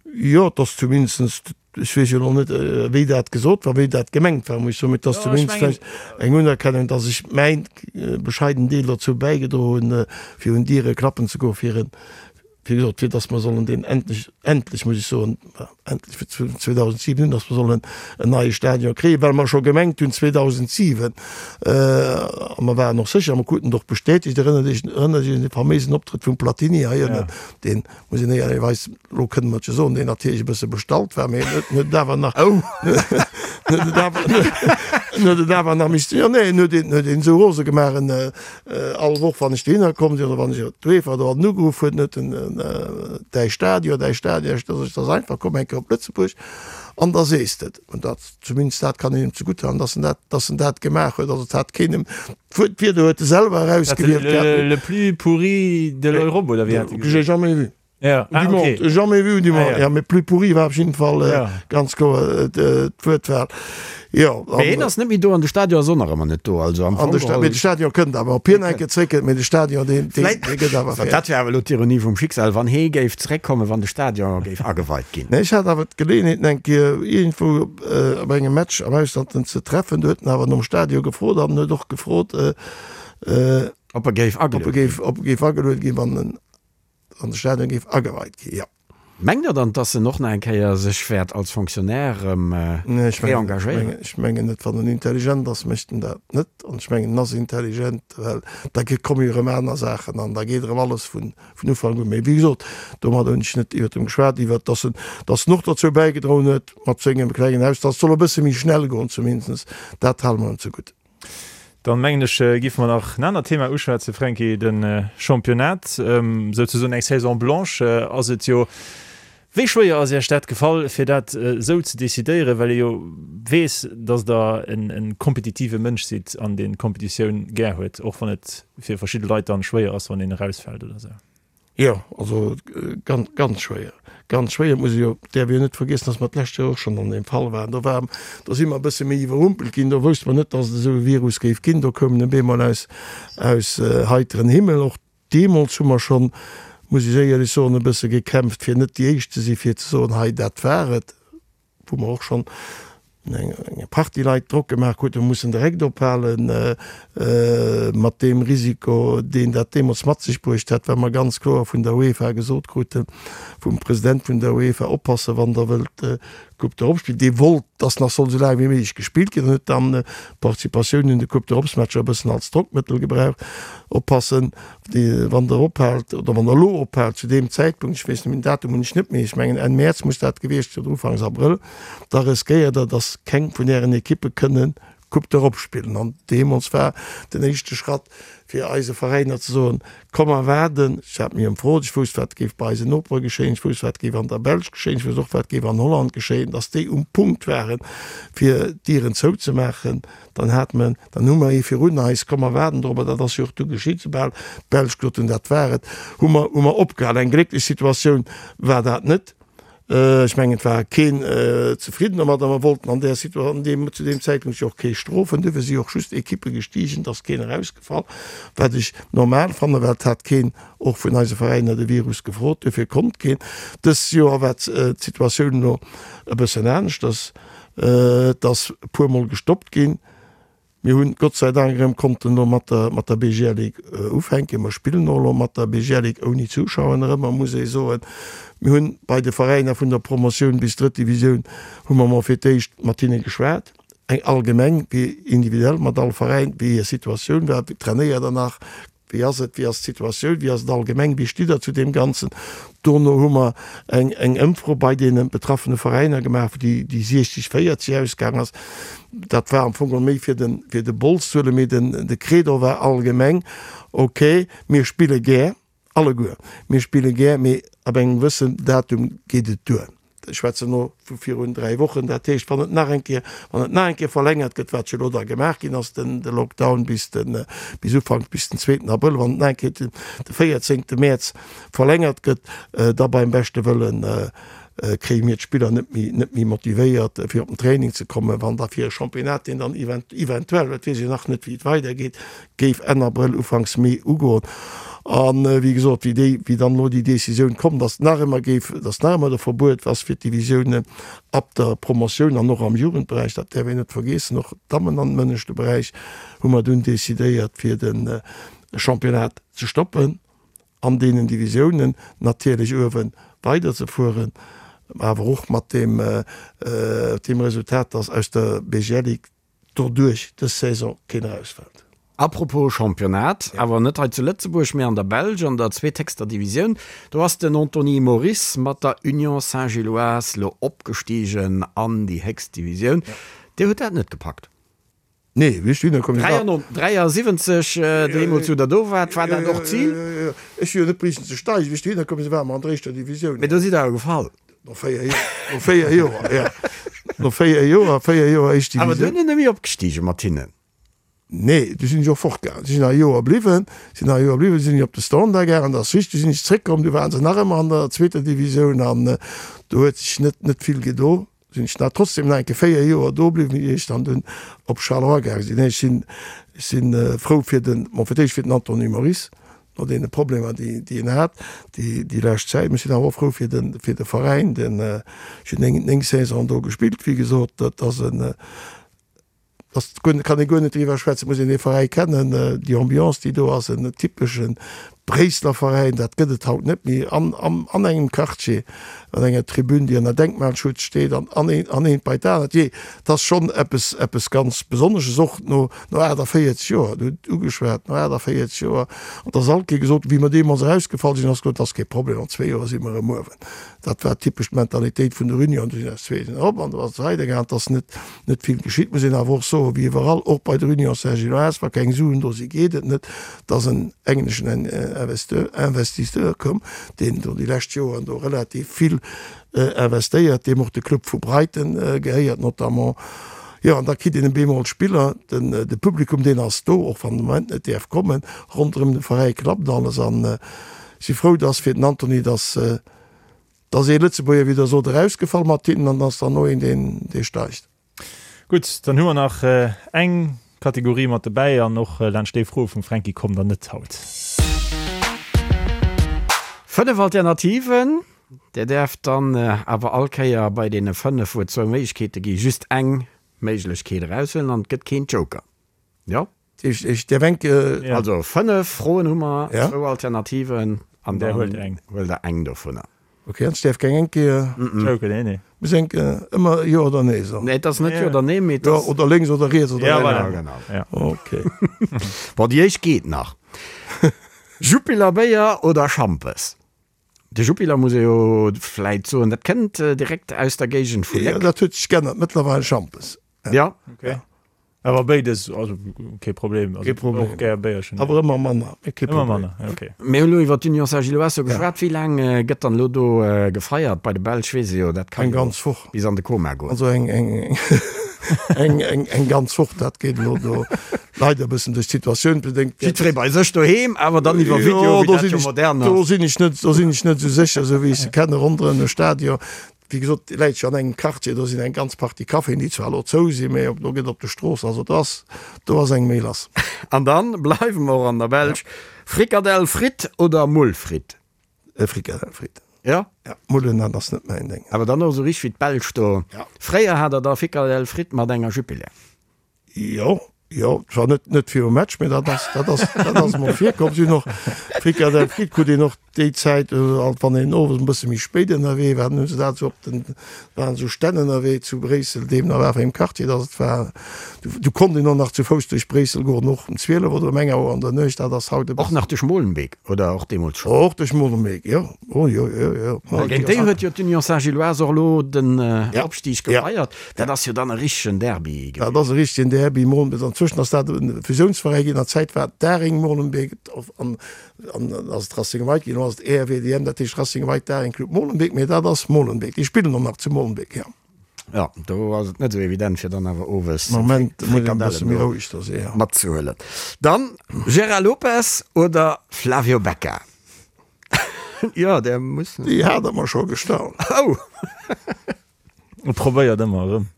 Jo, et ass zumindest, ech weess jo elo net, wéi dat gesot war, wéi dat gemengt war, muss ech soen, mee et ass zumindest vläicht eng Unerkennung, dass ech mäin bescheiden Deel dozou bäigedroen hunn, fir un Diere klappen ze goen, fir en, wéi gesot, fir dass mer sollen deen endlech, endlech muss ech soen, endlech fir 2007 hunn, dass mer sollen en neie Stadion kréien, well mer scho gemengt hunn 2007, a mer waren och sécher, mer kruten et och bestätegt, erënnert Iech, erënnert Iech un dee faméisen Optrëtt vum Platini hei ënnen, deen, muss een éierlecherweis, elo kënne mer et jo soen, deen natierlech e bësse bestallt war, mee en huet, en huet et awer nach, en huet et awer, en huet et awer nach missten, jo, nee, en huet een, huet een esou rose gemaach, en, all Woch, wann ech dohinner komm sinn oder wann ech op d'UEFA do an ugeruff huet, huet en, däi Stadion, däi Stadion, ech, dat ass einfach, komm eng Kéier op Lëtzebuerg an da sees de et. An dat, zumindest dat kann een him zegutt halen, dass en dat, dass en dat gemaach huet. Also et hat keen em, d'Wuert, d'Wierder huet e selwer erausgewielt gehabt. Le, le plus pourri de l'Europe, oder wéi hat e gesot? J'ai jamais vu. Ja, ah, du okay. Monde, jamais vu du monde. Ah, ja. ja, mais plus pourri war op jeden Fall äh, ja. ganz kloer äh, d'Wuertwahl. Jo, Mee hien ass net méi do an de Stadion ass och nach ëmmer net do. Also am Fong geholl. Mee de Stadion kënnt awer, ob hien eng Kéier zréckkënnt, mee de Stadion deen, deen, deen gëtt awer fäerdeg. Dat wär awer elo d'Ironie vum Schicksal, wann hee géif zréckkommen, wann de Stadion géif ageweit ginn. Nee, ech hat awer d'Geleeënheet en eng Kéier iergendwou op engem Match am Ausland en ze treffen. Do huet en awer nom Stadion gefrot an en huet och gefrot, Ob e géif agelueden ginn. Ob e géif agelueden ginn, wann en Wann de Stadion géif ageweit ginn, jo. Mengt Der dann, dass en och nach eng Kéier sech wäert als Fonctionnaire erëm reengagéieren? Ech mengen net. Wann en intelligent ass, mécht en dat net. An ech mengen, en ass intelligent, well da komme jo erëm aner Saachen an da geet erëm alles vun Ufank un. Mee wéi gesot, domadder hunn ech net iwwert em geschwat, iwwert dass en, dass en och dozou bäigedroen huet mat sengem klengen Haus, dass et soll e bësse méi schnell goen zumindest. Dat hale mer em zegutt. Dann mengen ech, giffe mer nach en anert Thema uschwätzen, Fränki, de Championnat. Souzesoen eng Saison blanche ass et jo. Wéi schwéier ass Iech dat gefall, fir dat esou ze decidéieren, well ee jo weess, datt Der e kompetitive Mënsch sidd an deen d'Kompetitioun gär huet, och wann et fir verschidde Leit dann schwéier ass, wann een erausfält oder esou? Jo, also ganz, ganz schwéier, ganz schwéier. Et muss ee jo, däerf ee jo net vergiessen, datt mer d'lescht Joer och schonn an deem Fall waren. Do war, do si mer e bësse méi iwwerrumpelt ginn. Do wousste mer net, datt et esou e Virus géif ginn. Do koum en op eemol aus, aus heiteren Himmel. Och deemools hu mer schonn, muss ech éierlech soen, e bësse gekämpft, fir net déi Éischt ze sinn, fir ze soen, hei dat war et. wou mer och schonn eng Partie Leit Drock gemaach kruten, mer mussen direkt ophalen mat deem Risiko, deen dat deemools mat sech bruecht hat, well mer ganz kloer vun der UEFA gesot kruten, vum President vun der UEFA, Oppassen, wann Der wëllt d'Coupe d'Europe spillen. Dee wollt, dass nach soll esou laang wéi méiglech gespillt ginn an huet dann d'Participatioun un de Coupe d'Europes-Matcher e bëssen als Drockmëttel gebraucht. Oppassen, Wann Der ophaalt, oder wann Der elo ophaalt zu deem Zäitpunkt, ech weess net méi, den Datum hunn ech net méi, ech mengen Enn Mäerz muss dat gewiescht sinn oder Ufanks Abrëll, da riskéiert Der, datt keng vun Ären Ekippe kënne Coupe d'Europe spillen. An deemools war den éischte Schratt, fir eise Veräiner ze soen, Komm mer waarden. Ech hat mech ëmfrot, ech wousst, wat géif bei eisen Nopere geschéien, ech wousst, wat géif an der Belsch geschéien, ech wousst och, wat géif an Holland geschéien, datt déi um Punkt waren, fir d'Dieren zouzemaachen. Dann hat mer, dann hu mer ee virun eis, komm mer waarden dorobber, dat ass jo och du geschitt, soubal d'Belsch gesot hunn, dat war et, hu mer, hu mer opgehal. Eng glécklech Situatioun war dat net. Ech mengen, et war keen zefridden domat a mer wollten an där Situa-, an deem, zu deem Zäitpunkt jo och kee strofen. Duerfir si och just Ekippe gestigen, et ass keen erausgefall, wat ech normal fannen, well et hat keen och vun eise Veräiner de Virus gefrot, duerfir konnt keen. Dëst Joer war d'Situatioun elo e bëssen aneschters, et ass e puermol gestoppt ginn. Mir hunn Gott sei Dank erëm konnten elo mat der mat der BGL Ligue ufänken. Mer spillen och elo mat der BGL Ligue ouni Zuschauer nach ëmmer, muss ee soen. Mir hunn bei de Veräiner vun der Promotioun bis drëtt Divisioun hu mer mol fir d'éischt mat hinne geschwat, eng allgemeng wéi individuell mat all Veräin, wéi hir Situatioun war, trainéiert der nach, Wéi ass et, wéi ass d'Situatioun, wéi ass et allgemeng, wéi stitt Der zu deem Ganzen? Dono hu mer eng, eng Ëmfro bei deene betraffene Veräiner gemaach, wou déi, déi 60, 40 ausgaang ass. Dat war am Fong geholl méi fir den, fir de Bols ze huelen, mee den, de Credo war allgemeng, Okay, mir spille gär, alleguer, mir spille gär, mee ab engem gewëssen Datum geet et duer. Ech schwätzen elo vu virun 3 Wochen. Dat heescht, wann et nach eng Kéier, wann et nach eng Kéier verlängert gëtt, wat jo elo da gemaach ginn ass, den, de Lockdown bis den, bis Ufank, bis den zweeten Abrëll, wann et nach eng Kéier den, de véierzéngte Mäerz verlängert gëtt, da beim beschte Wëllen kréie mir d'Spiller net méi, net méi motivéiert, fir op den Training ze kommen, wann da fir e Championnat, deen dann event, eventuell, dat weess ech nach net, wéi et weidergeet, géif Enn Abrëll, Ufanks Mee ugoen. A wéi gesot, wéi déi, wéi dann elo déi Décisioun komm, datt nach ëmmer géif, datt nach ëmmer de Verbuet ass fir d'Divisiounen ab der Promotioun an och am Jugendberäich, dat däerf een net vergeessen, och d'Dammen an dem ënneschte Beräich, hu mer dunn decidéiert fir de Championnat ze stoppen an deenen Divisiounen, natierlech uewe weiderzefueren, awer och mat deem, deem Resultat, datt aus der BGL Ligue doduerch dës Saison keen erausfält. Apropos Championnat, awer net hei zu Lëtzebuerg, mee an der Belsch an der zweethéchster Divisioun, do ass den Anthony Moris mat der Union Saint-Gilloise lo opgestigen an déi héchst Divisioun. Dir hutt dat net gepackt? Nee, wéi ech dohinner komm sinn, war. 73, deemools wou Der do waart, war dat och d'Zil? Ech hu jo net briechen ze steigen. Wéi ech dohinner komm sinn, ware mer an der éischter Divisioun. Mee do sidd Der awer gefall. No 4 Joer, no 4 Joer, ja. No 4 Joer, 4 Joer éischt Divisioun. Awer duerno net méi opgestigen mat hinnen? Nee, du sinn ech och fortgaangen. Si sinn nach e Joer bliwwen, sinn nach e Joer bliwwen, du sinn ech op de Standard gaangen, dat ass richteg. Du sinn ech zréckkomm, du waren se nach ëmmer an der zweeter Divisioun an do huet sech net, net vill gedo. Sinn ech nach trotzdem nach eng Kéier 4 Joer do bliwwen, ier ech dann dunn op Charleroi gaange sinn. Nee, ech sinn, ech sinn frou fir den, bon, fir d'éischt fir den Anthony Moris, no deene Problemer, déi, déi en hat déi, déi lescht Zäit. Ech sinn awer och frou fir de, fir de Veräin, den, ech hunn 9, 9 Saisonen do gespillt, wéi gesot, dat ass en, ass guer, kann ee guer net driwwer schwätzen, muss een dee Veräi kennen, déi Ambiance, déi do ass, en typesche Bréisseler Veräin, dat gëtt et haut net méi, an, an, an engem Quartier, an enger Tribün, déi ënner Denkmalschutz steet, an, an een, an eent bei d'anert, jee, dat ass schonn eppes, eppes ganz Besonnesches, och no, No 48 Joer, et huet ugeschwat, no 48 Joer, an et ass alt kee gesot, wéi mer deemools erausgefall sinn, ass gesot, et ass kee Problem, an zwee Joer si mer erëm uewen. Dat war typesch d'Mentalitéit vun der Union, du sinn aus zwee sinn erop an du ass et weidergaangen, et ass net, net vill geschitt. Muss een awer och soen, wéi iwwerall, och bei der Union Saint-Gilloise, wa keng Suen do si geet et net. Et ass en engleschen Investisseur komm, deen do déi lescht Joren do relativ vill investéiert, deem och de Club vu Brighton gehéiert notamment. Jo, an da kritt een bemol Spiller, den de Publikum deen ass do, och wann de Moment net däerf kommen, ronderëm de Veräi klappt alles an ech si frou, dass fir den Antony, dass dass ee Lëtzebuerger, wéi Der sot, erausgefall mat hinnen an dass dann no een deen dee steigt. Gutt, dann hu mer nach eng Kategorie mat dobäi an och laanscht déi Froe vum Fränki kommt der net haut. 5 Alternativen, Dir däerft dann awer all Kéier bei deene 5, wou et zwou Méiglechkeete gi, just eng Méiglechkeet eraushuelen an et gëtt keen Joker. Jo? Ech däerf eng. Also 5 Froen hu mer, zwou Alternativen an dann huelt Der eng dovunner. Ok, an ech däerf keng eng Kéier. Joker, nee, nee. Muss eng ëmmer jo oder nee soen? Nee, et ass net jo oder nee, mee et ass. Oder lénks oder riets oder. Ja, voilà, genau. Ok. Bon, déi éischt geet nach. Jupiler Béier oder Schampes? De Jupiler muss ee jo vläit soen, dat kënnt direkt aus der Géigend vu Léck. Jo, dat huet sech geännert, mëttlerweil Schampes. Ja. Ok. Awer béides, also kee Problem. Kee Problem. Och gär Béierchen. Awer ëmmer manner, mee kee Problem. Ëmmer manner, ok. Mir hunn elo iwwer d'Union Saint-Gilloise geschwat. Wéi laang gëtt dann elo do gefeiert? Bei de Belsch weess ee jo, dat kann jo bis an de Koma goen. Also eng, eng, eng, eng, eng ganz Woch, dat geet elo do leider e bëssen duerch d'Situatioun bedéngt. Jiddweree bei sech doheem, awer dann iwwer Video, wéi dat jo modern ass. Do sinn ech net, do sinn ech net esou sécher, esou wéi ech se kenne ronderëm de Stadion. Wéi gesot, dee läit jo an engem Quartier, do sinn eng ganz Partie Caféen, déi zwar elo zou sinn, mä do gëtt op de Strooss, also do ass, do ass eng méi lass. An dann bleiwe mer och an der Belsch, Frikadell Fritt oder Mull Fritt? Frikadell Fritt. Jo? Ja, Mullen, dat ass net mäin Déng. Awer dann och esou richteg wéi d'Belsch do. Ja. Fréier hat der da Frikadell Fritt mat enger Jupiler. Jo, jo, zwar net, net virum Match, mee dat ass, dat ass, dat ass emol virkomm. Si hunn och Frikadell Fritt krut een och déi Zäit, alt wann een owes e bësse méi spéit ënnerwee war, dann hu se dat esou op den, waren esou Stänn ënnerwee zu Bréissel, deemno war wéi im Quartier, datt et war, du, du konnt een och nach zu Fouss duerch Bréissel goen, och um 12 oder um eng Auer an der Nuecht, dat ass haut e Och bëssen. nach duerch Molenbeek, oder och deemools schonn? Och duerch Molenbeek, jo. Oh jo, jo, jo. Géint déi huet jo d'Union Saint-Gilloise och elo den Ja. Opstig Ja. gefeiert. Dat ass jo dann e richtegen Derby Dat ass e richtegen Derby, Molenbeek. Anzwëschen ass dat e Fusiounsveräi ginn. An der Zäit war et Daring Molenbeek an an ass et Racing White ginn. Elo ass et RWDM, dat heescht Racing White Daring Club Molenbeek. Mee dat ass Molenbeek. Déi spillen och nach zu Molenbeek, jo. Jo, do ass et net esou evident, fir dann awer owes Moment muss een e bësse Frikadellen méi do roueg do sinn, jo. matzehuelen. Dann Gérard Lopez oder Flavio Becca? Jo, där muss. Déi hat der mer scho gestallt. Oh! E probéiert ëmmer erëm.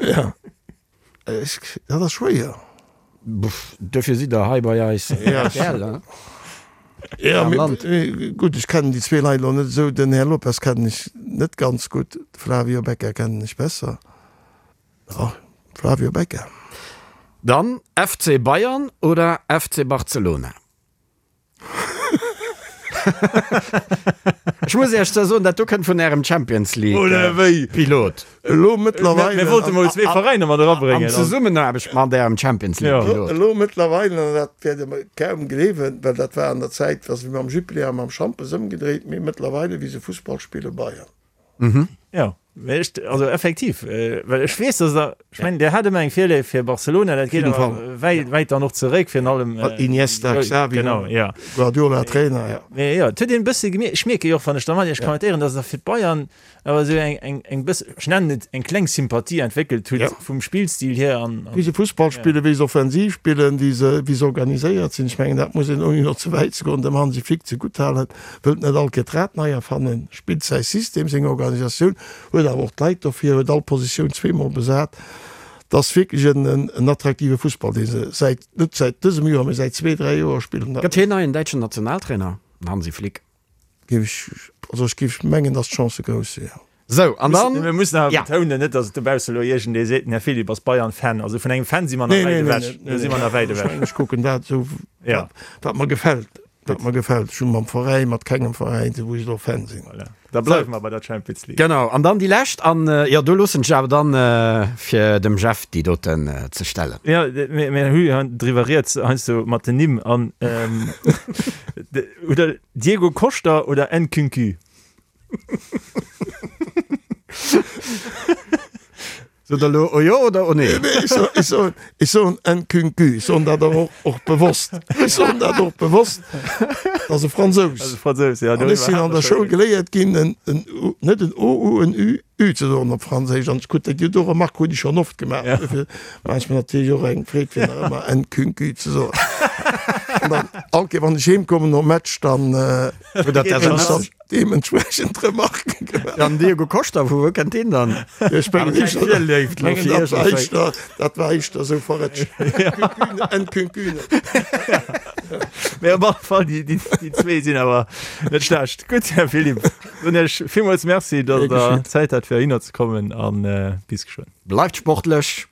Ja. Ech, dat ass schwéier. Duerfir sidd Der hei bei eis. Ja. RTL, hein? Ja, Am mee, Land. mee gutt, ech kennen déi zwee Leit elo net esou. Den Här Lopez kennen ech net ganz gutt, de Flavio Becca kennen ech besser. Ja, Flavio Becca. Dann FC Bayern oder FC Barcelona? Ech muss Iech zwar soen, dat do kënnt vun Ärem Champions League Oder wéi? Pilot. Elo mëttlerweile. Mir wollte mol zwee Veräiner mat erabréngen. An Zesummenaarbecht mat Ärem Champions League Pilot. Elo mëttlerweile, an dat wäert Der kaum gleewen, well dat war an der Zäit, wa se mam Jupiler a mam Schampes ëmgedréit, mee mëttlerweile, wéi se Fussball spillen, Bayern. Jo, mee ech, also effektiv, well ech weess, dass Der, ech mengen, Dir hat ëmmer eng Virléift fir Barcelona, dat geet awer wäit, wäit dann och zeréck, virun allem. Mat Iniesta, Xavi, genau, jo. Guardiola Trainer, jo. Mee jo, et huet een e bësse gemierkt, ech mierke jo och, wann ech da mat Iech kommentéieren, dass Der fir d'Bayern awer esou eng, eng, eng bësse, ech nennen et eng kleng Sympathie entwéckelt hutt vum Spillstil hier an. Wéi se Fussball spillen, wéi se offensiv spillen, wéi se, wéi se organiséiert sinn, ech mengen, dat muss een, ouni elo ze wäit ze goen, dem Hansi Flick zegutthalen. Wëllt net all Kéier d'Rad nei erfannen, spillt säi System, seng Organisatioun, huet awer och d'Leit dofir, huet all Positioun zweemol besat. Et ass wierklech en attraktive Fussball, dee se säit, net säit dësem Joer, mee säit zwee, dräi Joer spillen. Gëtt hien neien däitschen Nationaltrainer, den Hansi Flick? Géif ech, also ech géif mengen, datt d'Chancë grouss sinn, jo. Sou, an dann. Mir mussen awer betounen, net datt et dobausse elo iergendee seet, den Här Philipp ass Bayern-Fan. Also vun engem Fan si mer nach wäit ewech. Do si mer nach wäit ewech. Ech kucken dat esou, wat mer gefält. Wat mer gefält. Ech hu mam Veräin, mat kengem Veräin, wou ech elo Fan sinn. Voilà. Da bleiwe mer bei der Champions League. Genau, an dann déi lescht. An jo, do loossen ech awer dann fir dem Jeff déi doten ze stellen. Jo, mir hu jo driwwer rieds heiansdo mat den Nimm an oder Diego Costa oder Nkunku? Sot der elo o jo oder o nee? Ech soen, ech soen, ech soen Nkunku. Ech soen dat awer och, och bewosst. Ech soen dat och bewosst. Dat ass e Fransous. Dat ass e Fransous, ja. An ech sinn an der Schoul geléiert ginn, en, en U, net en O, U, en Ü, Ü ze soen op Franséisch. An ech krut déi do Remark hunn ech schonn oft gemaach. Ja. Dofir maache ech mer natierlech och eng Freed, fir nach ëmmer Nkunku ze soen. An dann, all Kéier wann ech heemkommen nom Match, dann, Deementsprechend Remarken gemaach. An Diego Costa, vu wou kënnt deen dann? Ech mengen éischter, mengen dat war éischter, dat war éischter esou verrëtscht. Nkunkune. Mee op alle Fall, déi, déi, déi zwee sinn awer net schlecht. Gutt, Här Philipp, soen Iech villmools Merci, datt Der Zäit hat fir heihinner ze kommen an bis geschwënn. Bleift sportlech!